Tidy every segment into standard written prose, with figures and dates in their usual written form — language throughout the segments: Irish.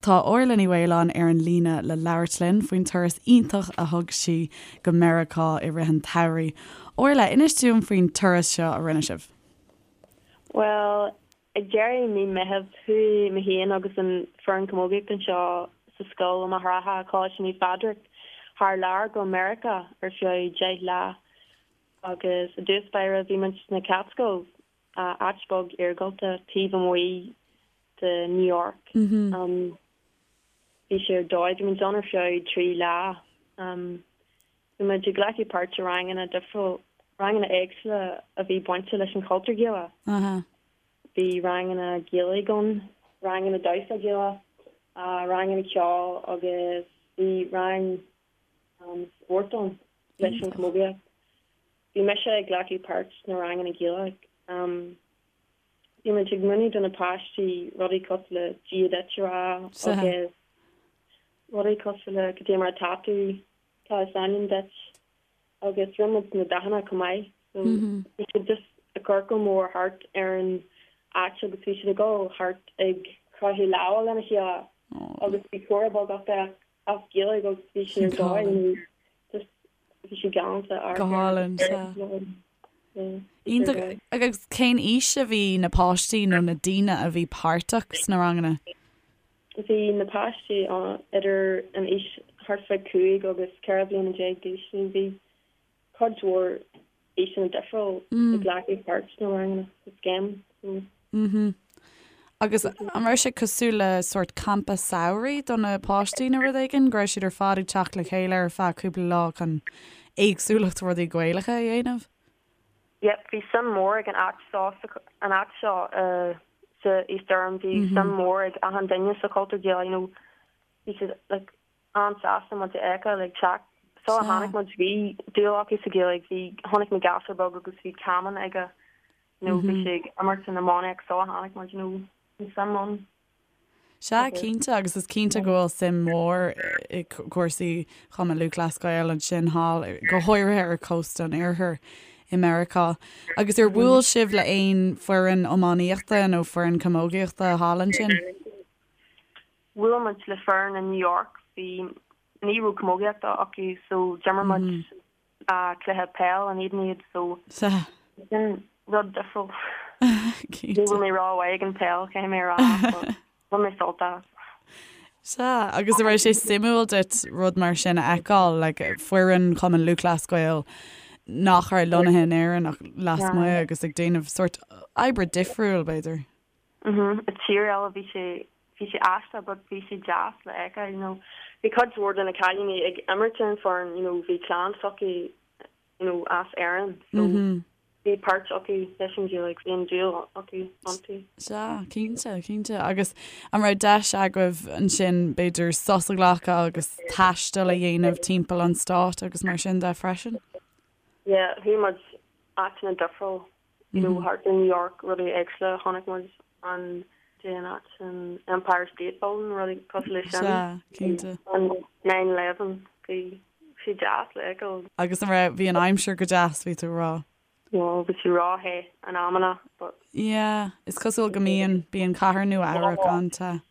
Tá Orla Ní Mhaoláin ar an líne le labhairt linn faoin turas iontach a thug sí go Meiriceá i rith an tsamhraidh. Orla, inis dúinn faoin turas seo a rinne sibh. Bhuel, ag deireadh mí Meitheamh, chuaigh mé féin agus an foireann camógaíochta anseo sa scoil i Machaire Rátha, Coláiste Naomh Phádraig, thar lear go Meiriceá ar feadh 10 lá. Agus i dtús báire bhí muid sna Catskills, áit beag iargúlta taobh amuigh de New York. Bhí sé ar dóigh, bhí muid ann ar feadh 3 lá. Bhí muid ag glacadh páirt i ranganna difriúil, ranganna éagsúla a bhí bainte leis an chultúr Gaelach. Bhí ranganna Gaeilge ann, ranganna damhsa Gaelach, ranganna ceoil agus bhí rang spóirt ann leis an chamógaíocht. Bhí mise ag glacadh páirt sna ranganna Gaeilge. Bhí muid ag múineadh do na páistí rudaí cosúil le Dia duit a rá agus rudaí cosúil le cad é mar atá tú, cad is ainm duit agus rinne muid na dathanna chomh maith. So bhí siad just i gciorcal mór thart ar an áit agus bhí siad ag dul thart ag croitheadh lámha lena chéile agus bhí comhrá beag acu as Gaeilge agus bhí sé ar dóigh just bhí sé galánta Go hálainn, sea. Iontach. Agus cén aois a bhí na páistí nó na daoine a bhí páirteach sna ranganna? Bhí na páistí idir an aois thart fá 5 agus 14 bliana d'aois so bhí cuid mhór aoiseanna difriúil ag glacadh páirt sna ranganna sa scéim so. Mhm. Agus an raibh sé cosúil le sórt campa samhraidh do na páistí nó rud éigin, go raibh siad ar fad ag teacht le chéile ar feadh cúpla lá chun éagsúlacht rudaí Gaelacha a dhéanamh? Yep, bhí suim mór ag an áit seo, an áit seo sa East Durham, bhí suim mór ag achan duine sa chultúr Gaelach, you know, bhí siad like an-sásta muid a fheiceáil ag teacht. Sula tháinig muid bhí dúil acu sa Ghaeilge, bhí, chonaic mé gasúr beag agus bhí camán aige, you know, bhí sé ag imirt san iománaíocht sula tháinig muid, you know, bhí suim ann. Sea, cinnte, agus is cinnte go bhfuil suim mhór i gcúrsaí Chumann Lúthchleas Gael ansin thall, go háirithe ar chósta an Oirthir i Meiriceá. Agus ar bhuail sibh le aon foireann iománaíochta nó foireann camógaíochta thall ansin? Bhuail muid le foireann i New York, bhí, ní raibh camógaíocht acu so d'imir muid cluiche peil in éadan iad so sin rud difriúil. Ní raibh mé rómhaith ag an peil, caithfidh mé a rá, but bhain mé sult as. Sea, agus an raibh sé suimiúil duit rud mar sin a fheiceáil, like foireann Chumann Lúthchleas Gael nach raibh lonnaithe in Éirinn ach lasmuigh agus ag déanamh sórt oibre difriúil, b'fhéidir? Mhm, i tír eile bhí sé, bhí sé aisteach but bhí sé deas le fheiceáil, you know. Bhí cuid mhór de na cailíní ag imirt ar an foireann, you know, bhí clann s'acu, you know, as Éirinn so bhí páirt acu leis an Ghaeilge, bhí an dúil acu iontu. Sea, cinnte, cinnte. Agus an raibh deis agaibh ansin b'fhéidir sos a ghlacadh agus taisteal a dhéanamh timpeall an stáit agus mar sin de freisin? Yeah, chuaigh muid áiteanna difriúil you know thart ar New York rudaí éagsúla chonaic muid an dé an áit an Empire State Building rudaí cosúil leis sin. Sea, cinnte. An 9/11 bhí sé deas le fheiceáil. Agus an raibh, bhí an aimsir go deas bhí tú a rá? No, bhí sé ró-the in amanna but. Yeah, is cosúil go mbíonn, bíonn cathair Nua Eabhrac an-te.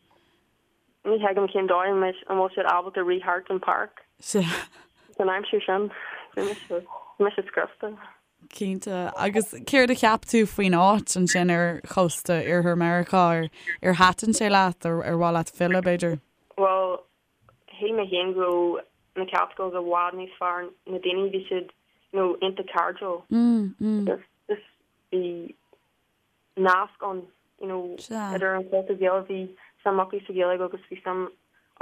Ní thuigim cén dóigh an bhfuil siad ábalta rith thart an páirc san aimsir sin. Bhí mise, bhí mise scriosta. Cinnte. Agus céard a cheap tú faoin áit ansin ar chósta Iarthar Meiriceá? Ar, ar thaitin sé leat? Ar, ar mhaith leat filleadh, b'fhéidir? Bhuel, shíl mé féin go raibh na Catskills i bhfad níos fearr. Na daoine, bhí siad, you know, iontach cairdiúil. Agus just bhí nasc ann, you know, idir an chultúr Gaelach, bhí suim acu sa Ghaeilge agus bhí suim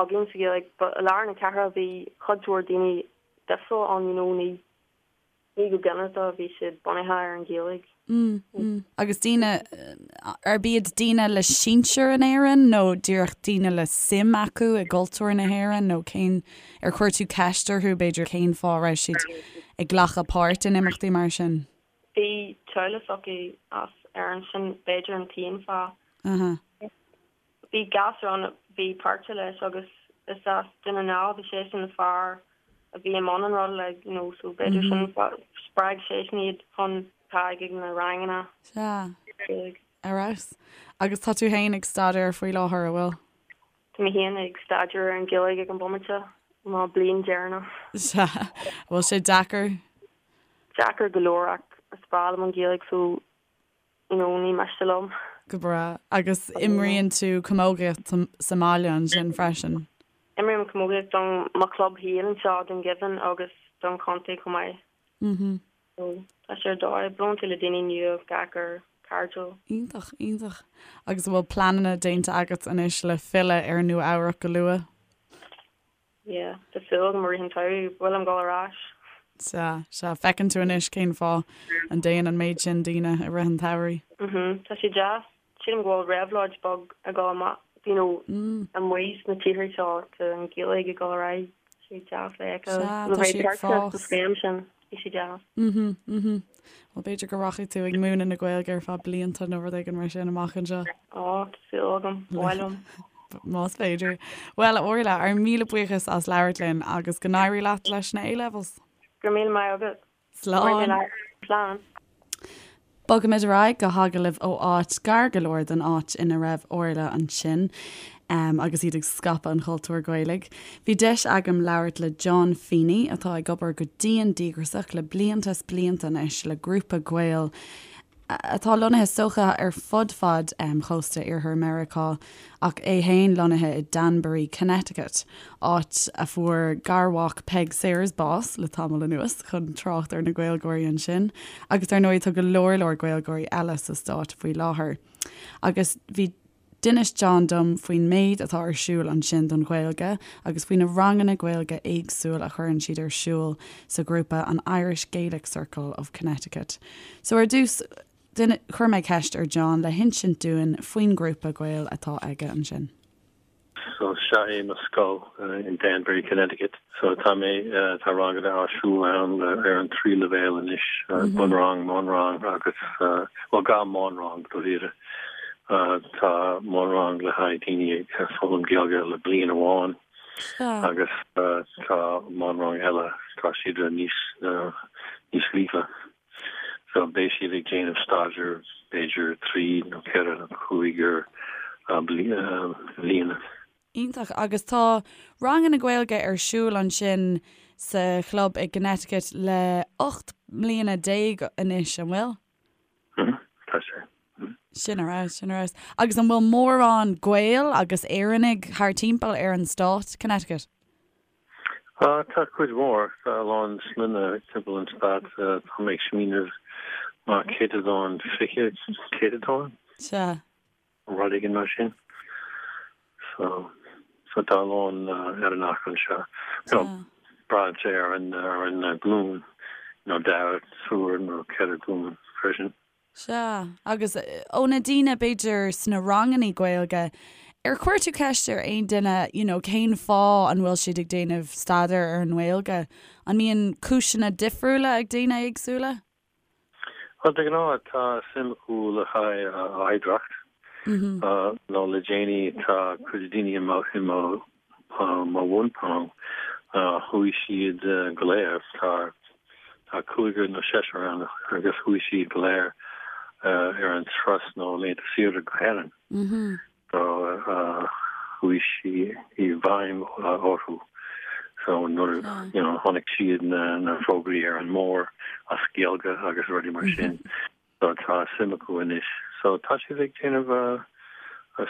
againn sa Ghaeilge. But i lár na cathrach bhí cuid mhór daoine difriúil ann, you know, ní, Ní go ginearálta bhí siad bunaithe ar an Ghaeilge. Agus daoine, arb iad daoine le sinsir in Éirinn nó díreach daoine le suim acu i gcultúr na hÉireann nó cén, ar chuir tú ceist orthu b'fhéidir cén fáth a raibh siad ag glacadh páirt in imeachtaí mar sin? Bhí teaghlach s'acu as Éirinn, sin b'fhéidir an t-aon fáth. Bhí gasúr ann a bhí páirteach leis agus is as Dún na nGall, bhí seisean an fear a bhí i mbun an ruda like you know so b'fhéidir sin spreag seisean iad chun teacht ag na ranganna. Sea. Ar fheabhas. Agus tá tú féin ag staidéar faoi láthair, an bhfuil? Tá mé féin ag staidéar ar an Ghaeilge ag an bomaite, mo bliain deireanach. Sea. An bhfuil sé deacair? Deacair go leor ach is breá liom an Ghaeilge so you know ní miste liom. Go breá. Agus imríonn tú camógaíocht sa mbaile ansin freisin? Imrím camógaíocht don mo chlub féin anseo i Dún Geimhin agus don chontae chomh maith. Mhm. So tá sé ar dóigh, buaileann tú le daoine nua gach uair, cairdiúil. Iontach, iontach. Agus an bhfuil pleananna déanta agat anois le filleadh ar Nua Eabhrac go luath? Yeah, tá súil agam i rith an tsamhraidh, ba mhaith liom dul ar ais. Sea, sea. Feiceann tú anois cén fáth a dtéann an méid sin daoine i rith an tsamhraidh. Mhm, tá sé deas. Sílim go bhfuil réabhlóid beag ag dul amach, you know, amuigh sna tíortha seo, tá an Ghaeilge ag dul ar aghaidh, tá sé deas le feiceáil. Sea, tá sí ag fás. Sa scéim sin, bhí sé deas. Mhm, mhm. Bhuel, b'fhéidir go rachaidh tú ag múineadh na Gaeilge ar feadh blianta nó rud éigin mar sin amach anseo. Á, tá súil agam, ba mhaith liom. Más féidir. Bhuel, a Orla, ár míle buíochas as labhairt linn agus go n-éirí leat leis na A-levels. Go raibh míle maith agat. Slán. Slán. Bogaimid ar aghaidh go hagallamh ó áit gar go leor don áit ina raibh Orla ansin agus iad ag scaipeadh an chultúir Ghaelaigh. Bhí deis agam labhairt le John Feeney atá ag obair go dian díograsach le blianta is blianta anois le grúpa Gael atá lonnaithe is dócha ar fud fad chósta iarthar Meiriceá, ach é féin lonnaithe i Danbury, Connecticut, áit a fuair garmhac Peig Sayers bás le tamall anuas, chun trácht ar na Gaeilgeoirí ansin, agus ar ndóigh tá go leor leor Gaeilgeoirí eile sa stát faoi láthair. Agus bhí. D'inis John dom faoin méid atá ar siúl ansin don Ghaeilge agus faoi na ranganna Gaeilge éagsúil a chuireann siad ar siúl sa ghrúpa an Irish Gaelic Circle of Connecticut. So ar dtús, chuir mé ceist ar John le hinsint dúinn faoin ngrúpa Gael atá aige ansin. So seo é mo scoil in Danbury, Connecticut. So tá mé, tá ranganna á siúl ann ar an trí leibhéal anois, bunrang, meánrang agus, bhuel dhá mheánrang dáiríre. Tá meánrang le haghaidh daoine ag foghlaim Gaeilge le bliain amháin agus tá meánrang eile, tá siad níos, níos líofa. So beidh siad ag déanamh staidéar b'fhéidir trí nó ceithre nó cúig bliana. Iontach. Agus tá ranganna Gaeilge ar siúl ansin sa chlub i gConnecticut le 18 mbliana anois, an bhfuil? Tá sé. Sin ar fheabhas, sin ar fheabhas. Agus an bhfuil mórán Gael agus Éireannaigh thar timpeall ar an stát, Connecticut? Tá cuid mhór, tá a lán sloinne timpeall an stát, tá mé ag smaoineamh mar céatadán, 20 céatadán? Sea. Rud éigin mar sin. So, so tá a lán Éireannach anseo. You know, braitheann sé ar an, ar an glúin, you know, dara, triúr nó ceithre glúin freisin. Sea, agus ó na daoine, b'fhéidir, sna rangannaí Gaeilge, ar chuir tú ceist ar aon duine, you know, cén fáth an bhfuil siad ag déanamh staidéar ar an nGaeilge? An mbíonn cúiseanna difriúla ag daoine éagsúla? Bhuel, de ghnáth tá suim acu le haghaidh oidhreacht, nó le déanaí tá cuid daoine i mo, i mo mo bhunrang, chuaigh siad go léir, tá tá cúigear nó seisear ann agus chuaigh siad go léir ar an turas nó laethanta saoire go hÉirinn. So chuaigh sí i bhfeidhm orthu. So nuair you know chonaic siad na na fógraí ar an mbord as Gaeilge agus rudaí mar sin. So tá suim acu anois. So tá siad ag déanamh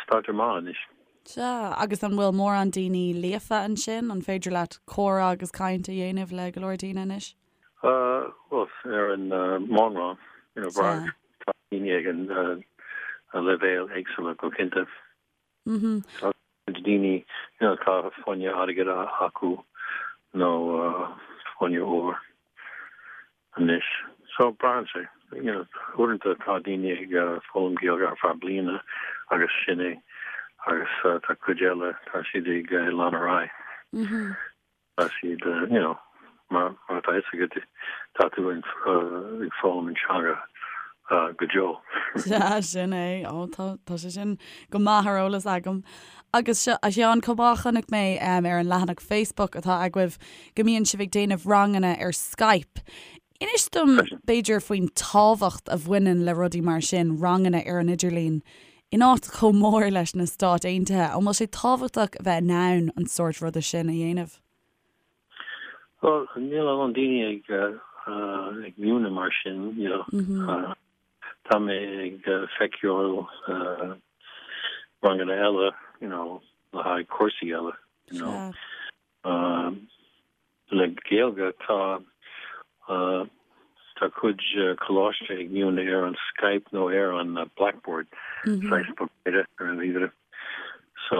staidéar maith anois. Sea, agus an bhfuil mórán daoine líofa ansin? An féidir leat comhrá agus caint a dhéanamh le go leor daoine anois? Bhuel, ar an meánrang, you know, tá daoine ag an leibhéal éagsúla go cinnte. Tá cuid daoine, you know, tá fáinne airgid acu nó fáinne óir anois. So braitheann sé, you know, uaireanta tá daoine ag foghlaim Gaeilge ar feadh bliana agus sin é agus tá cuid eile, tá siad ag lean ar aghaidh. Tá siad, you know, mar atá fhios agat, tá tú ag foghlaim an teanga go deo. Sea, sin é. Ó, tá, tá sé sin go maith ar eolas agam. Agus seo, a Sheáin, chomh maith, chonaic mé ar an leathanach Facebook atá agaibh go mbíonn sibh ag déanamh ranganna ar Skype. Inis dom, b'fhéidir, faoin tábhacht a bhaineann le rudaí mar sin, ranganna ar an idirlíon. In áit chomh mór leis na Stáit Aontaithe, an bhfuil sé tábhachtach a bheith in ann an sórt ruda sin a dhéanamh? Bhuel, níl a lán daoine ag ag múineadh mar sin, you know. Tá mé ag feiceáil ranganna eile, you know, le haghaidh cúrsaí eile, you know. Le Gaeilge tá tá cuid coláiste ag múineadh ar an Skype nó ar an Blackboard, saghas bogearra ar an ríomhaire. So,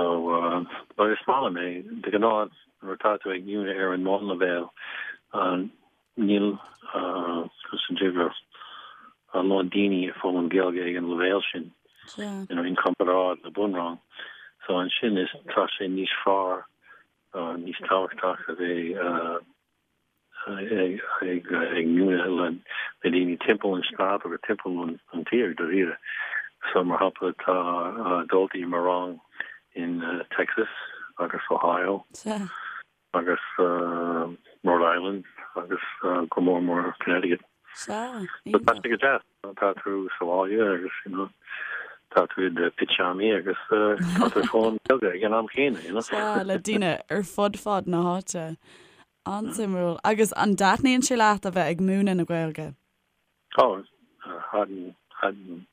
but is maith liom é. De ghnáth nuair atá tú ag múineadh ar an mbunleibhéal níl conas a déarfá a lán daoine ag foghlaim Gaeilge ag an leibhéal sin, you know, in comparáid le bunrang. So ansin is tá sé níos fearr níos tábhachtach a bheith ag múineadh le daoine timpeall an stát agus timpeall an tír dáiríre. So mar shampla tá daltaí i mo rang in Texas agus Ohio agus Rhode Island agus go mór mór Connecticut. Sea, So tá sé go deas. Tá tú sa bhaile agus you know tá tú i do pitseámaí agus tá tú ag foghlaim Gaeilge ag an am chéanna, you know. Sea, le daoine ar fud fad na háite. An-suimiúil. Agus an dtaitníonn sé leat a bheith ag múineadh na Gaeilge? Ó, thaitin, thaitin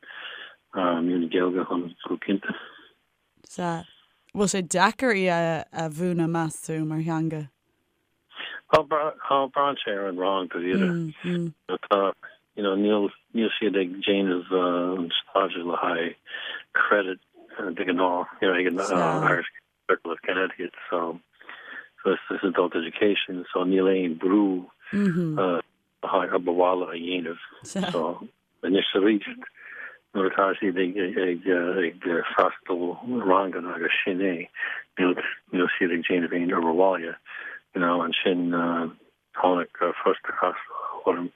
múineadh Gaeilge liom go cinnte. Sea. Bhfuil sé deacair í a mhúineadh, meas tú, mar theanga? Bhuel, braitheann sé ar an rang, dáiríre. Tá, you know, níl, níl siad ag déanamh an staidéar le haghaidh credit de ghnáth, you know, ag an Irish Circle of Connecticut, so, so it's adult education, so níl aon brú le haghaidh obair bhaile a dhéanamh. So, anois arís, nuair atá siad ag freastal ranganna agus sin é, níl siad ag déanamh aon obair bhaile, you know, ansin tháinig frustrachas orm,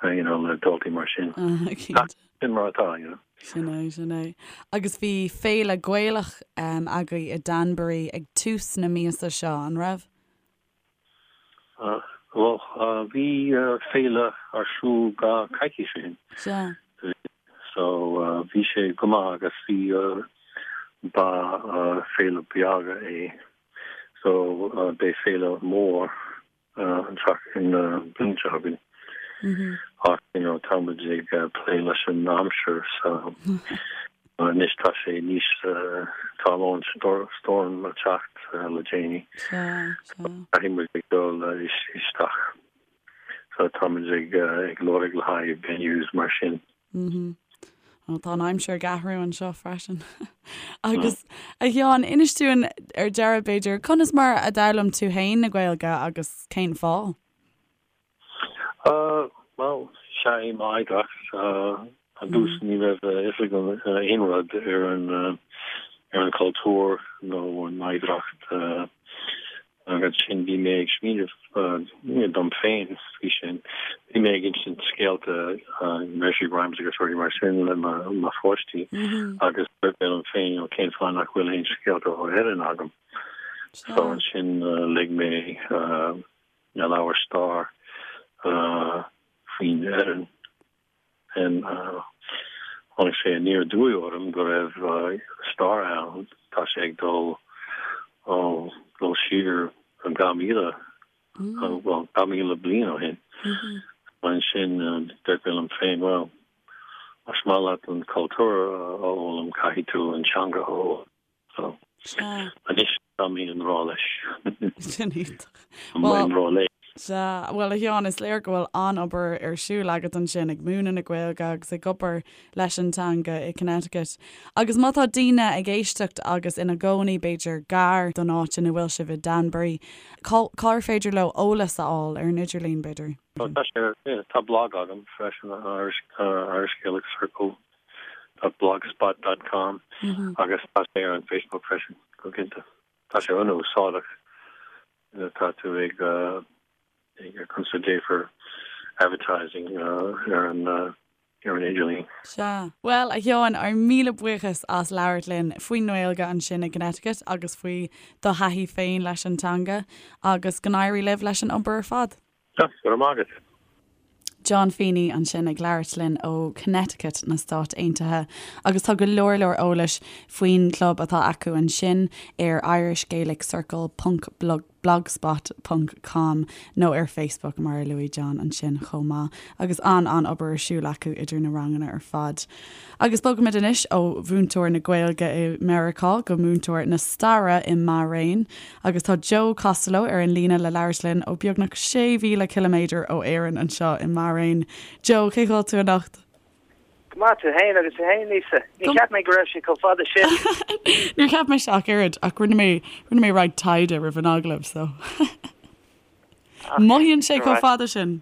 you know, le daltaí mar sin. Sin mar atá, you know. Sin é, sin é. Agus bhí féile Gaelach agaibh i Danbury ag tús na míosa seo, an raibh? Bhuel, bhí féile ar siúl dhá coicís ó shin. Sea. So, bhí sé go maith agus bhí, ba féile beag é. So, beidh féile mór an tseachtain, an bhliain seo chugainn. Ach, you know, tá muid ag plé leis an aimsir, so anois tá sé níos, tá a lán storm ag teacht le déanaí. Sea, sea. Caithfidh muid ag dul isteach. So tá muid ag ag lorg le haghaidh venues mar sin. Bhuel, tá an aimsir ag athrú anseo freisin. Agus, a Sheáin, inis dúinn ar deireadh, b'fhéidir, conas mar a d'fhoghlaim tú féin na Gaeilge agus cén fáth? Bhuel, sea, é m'oidhreacht. Ar dtús ní raibh a fhios agam aon rud ar an ar an chultúr nó an oidhreacht agus ansin bhí mé ag smaoineamh dom féin faoi sin. Bhí mé ag insint scéalta, nursery rhymes agus rudaí mar sin le mo pháistí agus dúirt mé liom féin, cén fáth nach bhfuil aon scéalta ó Éirinn agam? So ansin léigh mé na leabhair stair faoin Éirinn. Tháinig sé aniar aduaidh orm go raibh stair ann, tá sé ag dul ó dul siar 2,000, bhuel, 2,000 bliain ó shin. Ansin dúirt mé liom féin, bhuel, más maith leat an cultúr a fhoghlaim, caithfidh tú an teanga a fhoghlaim. So, anois tá mé i ngrá leis. Sin iontach. Tá mé i ngrá léi. Sea, bhuel a Sheáin, is léir go bhfuil an-obair ar siúl agat ansin ag múineadh na Gaeilge agus ag obair leis an teanga i Connecticut. Agus má tá daoine ag éisteacht agus ina gcónaí b'fhéidir gar don áit ina bhfuil sibh i Danbury, cá, cár féidir leo eolas a fháil ar an idirlíon b'fhéidir? Tá sé ar, tá blog agam freisin, Irish, Irish Gaelic Circle. blogspot dot com agus tá sé ar an Facebook freisin, go cinnte. Tá sé an-úsáideach nuair atá tú ag ag consider advertising ar an ar an idirlíon. Sea. Bhuel, a Sheáin, ár míle buíochas as labhairt linn faoin nGaeilge ansin i gConnecticut agus faoi do thaithí féin leis an teanga agus go n-éirí libh leis an obair ar fad. Go raibh maith agat. John Feeney ansin ag labhairt linn ó Connecticut na Stát Aontaithe agus tá go leor leor eolais faoin gclub atá acu ansin ar irishgaeliccircle ponc blogspot ponc com nó ar Facebook mar a luaigh John ansin chomh maith agus an-an-obair ar siúl acu idir na ranganna ar fad. Agus bogaimid anois ó mhúinteoir na Gaeilge i Meiriceá go múinteoir na staire i mBairéin agus tá Joe Costello ar an líne le labhairt linn ó beagnach 6,000 ciliméadar ó Éirinn anseo i mBairéin. Joe, cén chaoi a bhfuil tú anocht? Go maith, tú fhéin agus tú fhéin, Lisa. Ní cheap mé go raibh sé chomh fada sin. Níor cheap mise ach oiread ach rinne mé rinne mé roinnt taighde roimh an agallamh so. Mothaíonn sé chomh fada sin.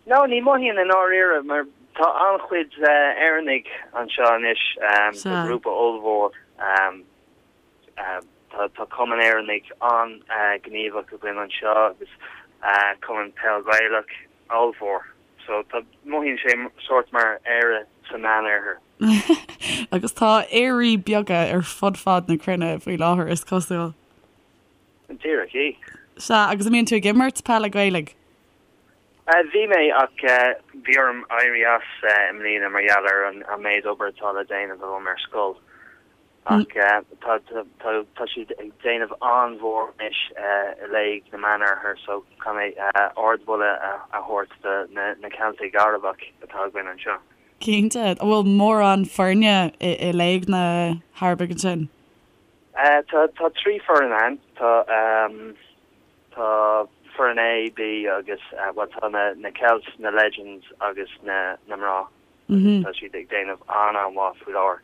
No, ní mothaíonn i ndáiríre mar tá an-chuid Éireannaigh anseo anois, tá grúpa ollmhór, tá Cumann Éireannaigh an-ghníomhach againn anseo agus Cumann Peil Ghaelach ollmhór. So tá, mothaíonn sé sórt mar Éire sa Meánoirthear. Agus tá Éirí beaga ar fud fad na cruinne faoi láthair, is cosúil. Díreach í. Sea, agus an mbíonn tú ag imirt peile Gaelaigh? Bhí mé, ach bhí orm éirí as i mbliana mar gheall ar an méid obair atá le déanamh agam ar scoil. Ach tá siad ag déanamh an-mhór anois i Léig na Meánoirthear so caithfidh mé ardmholadh a thabhairt do na Ceiltigh Arabacha atá againn anseo. Cinnte. An bhfuil mórán foirne i Léig na hArabaigh ansin? Tá 3 foireann ann. Tá tá foireann A, B agus bhuel tá na na Celts, na Legends agus na na mná agus tá siad ag déanamh an-an-mhaith faoi láthair,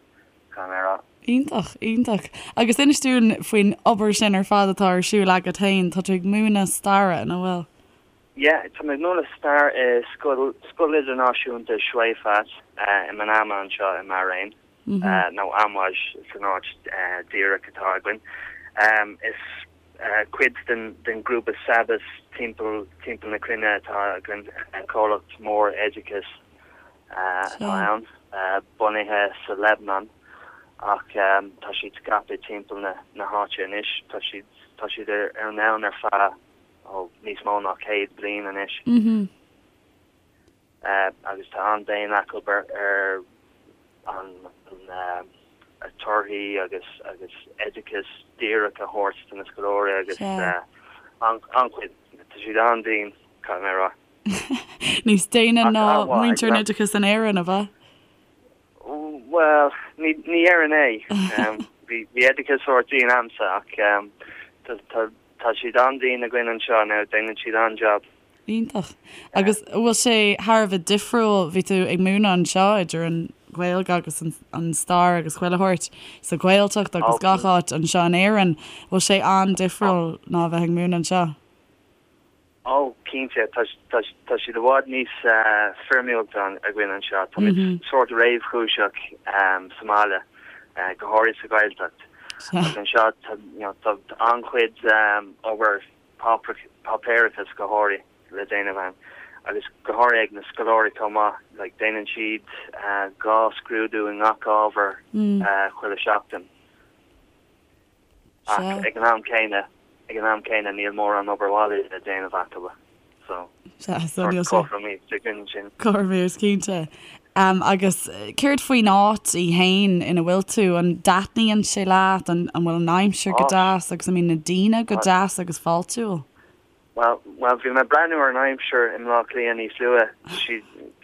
caithfidh mé a rá. Iontach, iontach. Agus inis dúinn faoin obair sin ar fad atá ar siúl agat féin. Tá tú ag múineadh staire, nach bhfuil? Yeah, tá mé ag múineadh stair i scoil Scoil Idirnáisiúnta Choueifat i Manama anseo i mBairéin. nó Amwaj san áit díreach atá againn. Is cuid den ghrúpa SABIS timpeall timpeall na cruinne atá againn, comhlacht mór oideachais atá ann, bunaithe sa Lebanon ach tá siad scaipthe timpeall na háite anois. Tá siad tá siad ar an domhan ar feadh níos mó ná 100 bliain anois. agus tá an-bhéim acu ar an torthaí agus agus oideachas díreach a thabhairt do na scoláirí agus an-chuid, tá siad an-dian, caithfidh mé a rá. Níos déine ná muintir an oideachais in Éirinn, ab ea? Bhuel, ní déarfainn é. Bhí oideachas sórt dian a'msa ach tá siad an-dian againn anseo now, déanann siad an-jab. Iontach. Agus an bhfuil sé thar a bheith difriúil, bhí tú ag múineadh anseo idir an Ghaeilge agus an stair agus chuile shórt sa Ghaeltacht agus gach áit anseo in Éirinn, bhfuil sé an-difriúil ná a bheith ag múineadh anseo? Ó, cinnte, tá tá siad i bhfad níos foirmiúlta againn anseo. Táimid sórt réamhchúiseach sa mbaile, go háirithe sa Ghaeltacht. Ach anseo tá an-chuid obair páipéarachas go háirithe le déanamh ann agus go háirithe ag na scoláirí chomh maith, like déanann siad 2 scrúdú i ngach ábhar chuile seachtain. Ach ag an am céanna, ag an am céanna níl mórán obair bhaile le déanamh acu so sórt cothromaíocht againn ansin. Cothromaíocht, cinnte. Agus céard faoin áit í fhéin ina bhfuil tú? An dtaitníonn sé leat? An bhfuil an aimsir go deas agus an mbíonn na daoine go deas agus fáiltiúil? Bhuel, bhuel, bhí mé ag breathnú ar an aimsir i mBleá Cliath níos luaithe.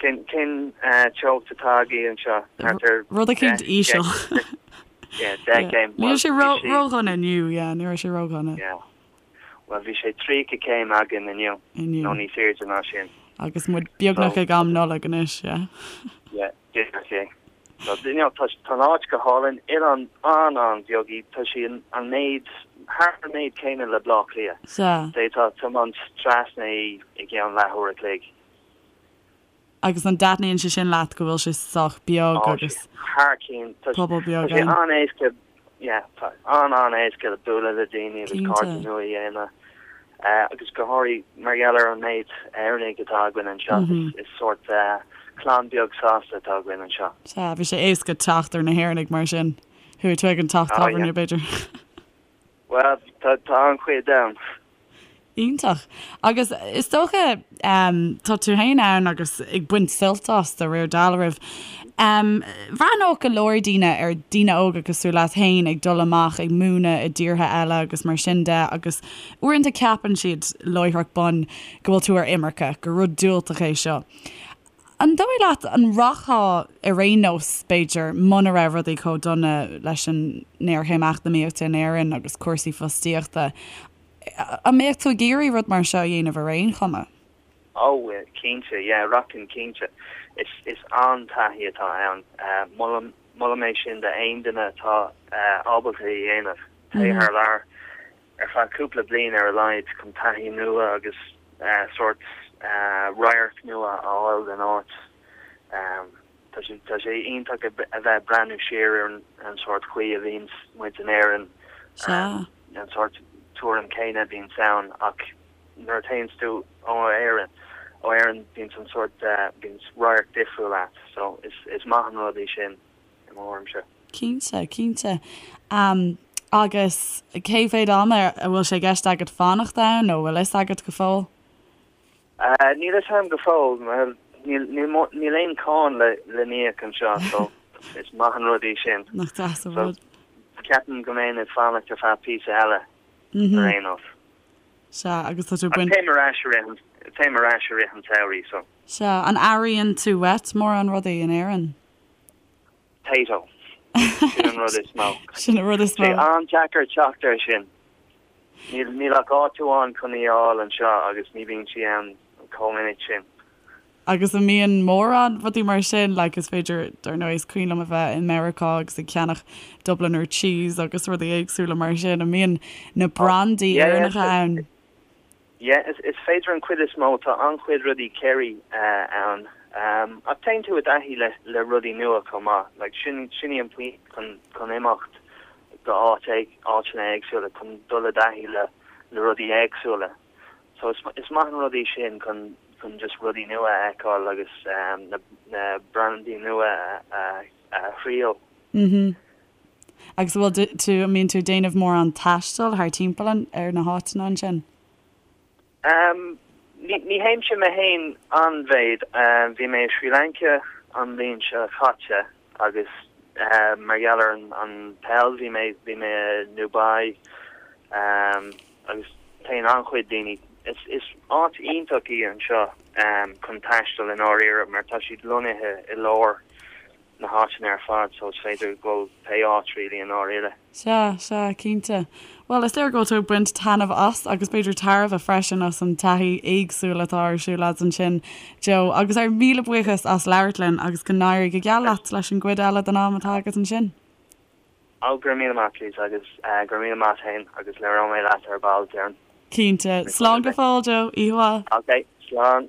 Cén, cén teocht atá agaibh anseo? Thart ar Rud eicínt íseal. Yeah, 10 céim. Ní raibh sé ródhona inniu, yeah, ní raibh sé ródhona. Yeah. Bhuel, bhí sé 30 céim againn inniu, nó níos airde ná sin. Agus muid beagnach ag am Nollag anois, yeah. Yeah, díreach é. So, you know, tá an áit go hálainn, oileán an-an-bheag í, tá sí an méid, thar an méid céanna le Bleá Cliath. Sea. D'fhéadfá tiomáint trasna í i gceann leathuair a chloig. Agus an dtaitníonn sé sin leat go bhfuil sé sách beag agus Thar cionn. pobal beag Tá sé an-éasca, yeah, tá an-an-éasca le bualadh le daoine agus cairde nua a dhéanamh. Agus go háirithe mar gheall ar an méid Éireannaigh atá againn anseo, is sórt clann beag sásta atá againn anseo. Sea, bhí sé éasca teacht ar na hÉireannaigh mar sin. Chuaigh tú ag an teach tábhairne, b'fhéidir. Bhuel, tá an-chuid ann. Iontach. Agus is dócha, tá tú féin ann agus ag baint suilt as de réir dealraimh. Bhreathnódh go leor daoine ar daoine óga cosúil leat féin ag dul amach ag múineadh i dtíortha eile agus mar sin de agus uaireanta ceapann siad láithreach bonn go bhfuil tú ar imirce, gur rud diúltach é seo. An dóigh leat an rachfá ar aon nós, b'fhéidir, muna raibh rudaí chomh dona leis an ngéarchéim eacnamaíochta in Éirinn agus cúrsaí fostaíochta, an mbeadh tú ag iarraidh rud mar seo a dhéanamh ar aon chuma? Ó, cinnte, yeah, rachainn cinnte. Is, is an-taithí atá ann. Molaim, molaim é sin d'aon duine atá ábalta é a dhéanamh. Téigh thar lear. ar feadh cúpla bliain ar a laghad chun taithí nua agus sórt radharc nua a fháil den áit. Tá sé tá sé iontach a bheith ag breathnú siar ar an sórt chaoi a bhíonns muid in Éirinn, an sórt tuairim céanna a bhíonns ann ach nuair a théanns tú ó Éirinn ó Éirinn bíonns an sórt bíonns radharc difriúil a't so is is maith an rud é sin i mo thuairimse. Cinnte, cinnte. Agus cé mhéad ama a bhfuil sé i gceist agat fanacht ann nó bhfuil fhios agat go fóill? Níl fhios agam go fóill. Níl aon cáin le n-íoc anseo so is maith an rud é sin. Nach deas an rud. Ceapaim go mbeinn ag fanacht ar feadh píosa eile ar aon nós. Sea, agus tá tú ag baint. Téim ar ais i rith an, téim ar ais i rith an tsamhraidh so. Sea, an airíonn tú uait mórán rudaí in Éirinn? Tayto. Sin an rud is mó. Sin an rud is mó. Sé an-deacair teacht air sin. Níl, níl ach áit amháin chun í a fháil anseo agus ní bhíonn sí ann chomh minic sin. Agus an mbíonn mórán rudaí mar sin, like is féidir, dar ndóigh, is cuimhin liom a bheith i Meiriceá agus ag ceannach Dubliner cheese agus rudaí éagsúla mar sin, an mbíonn na brandaí Éireannacha ann? Yeah, is féidir an chuid is mó, tá an-chuid rudaí Kerry ann. Ach téann tú i dtaithí le rudaí nua chomh maith. Like, sin, sin í an pointe chun, chun imeacht go áit, áiteanna éagsúla, chun dul i dtaithí le, le rudaí éagsúla. So is, is maith an rud í sin chun, chun just rudaí nua a fheiceáil agus na, na brandaí nua a, a thriail. Mhm. Agus an bhfuil tú, an mbíonn tú ag déanamh mórán taistil thar timpeall an, ar na háiteanna ansin? Em, ní, ní théimse mé féin an-mhéid. Bhí mé i Sri Lanka an bhliain seo caite agus mar gheall ar an, an peil bhí mé, bhí mé i nDubai agus téann an-chuid daoine. Is, is áit iontach í anseo chun taisteal i ndáiríre mar tá siad lonnaithe i lár na háiteanna ar fad so is féidir dul pé áit really i ndáiríre. Sea, sea, cinnte. Bhuel, is léir go bhfuil tú ag baint taitneamh as agus b'fhéidir tairbhe freisin as an taithí éagsúil atá ar siúl agat ansin, Joe. Agus ár míle buíochas as labhairt linn agus go n-éirí go geal leat leis an gcuid eile den am atá agat ansin. Ó, go raibh míle maith, Lisa, agus go raibh míle maith féin agus labhróidh mé leat ar ball, déarfainn. Cinnte. Slán go fóill, Joe. Oíche mhaith. Ok, slán.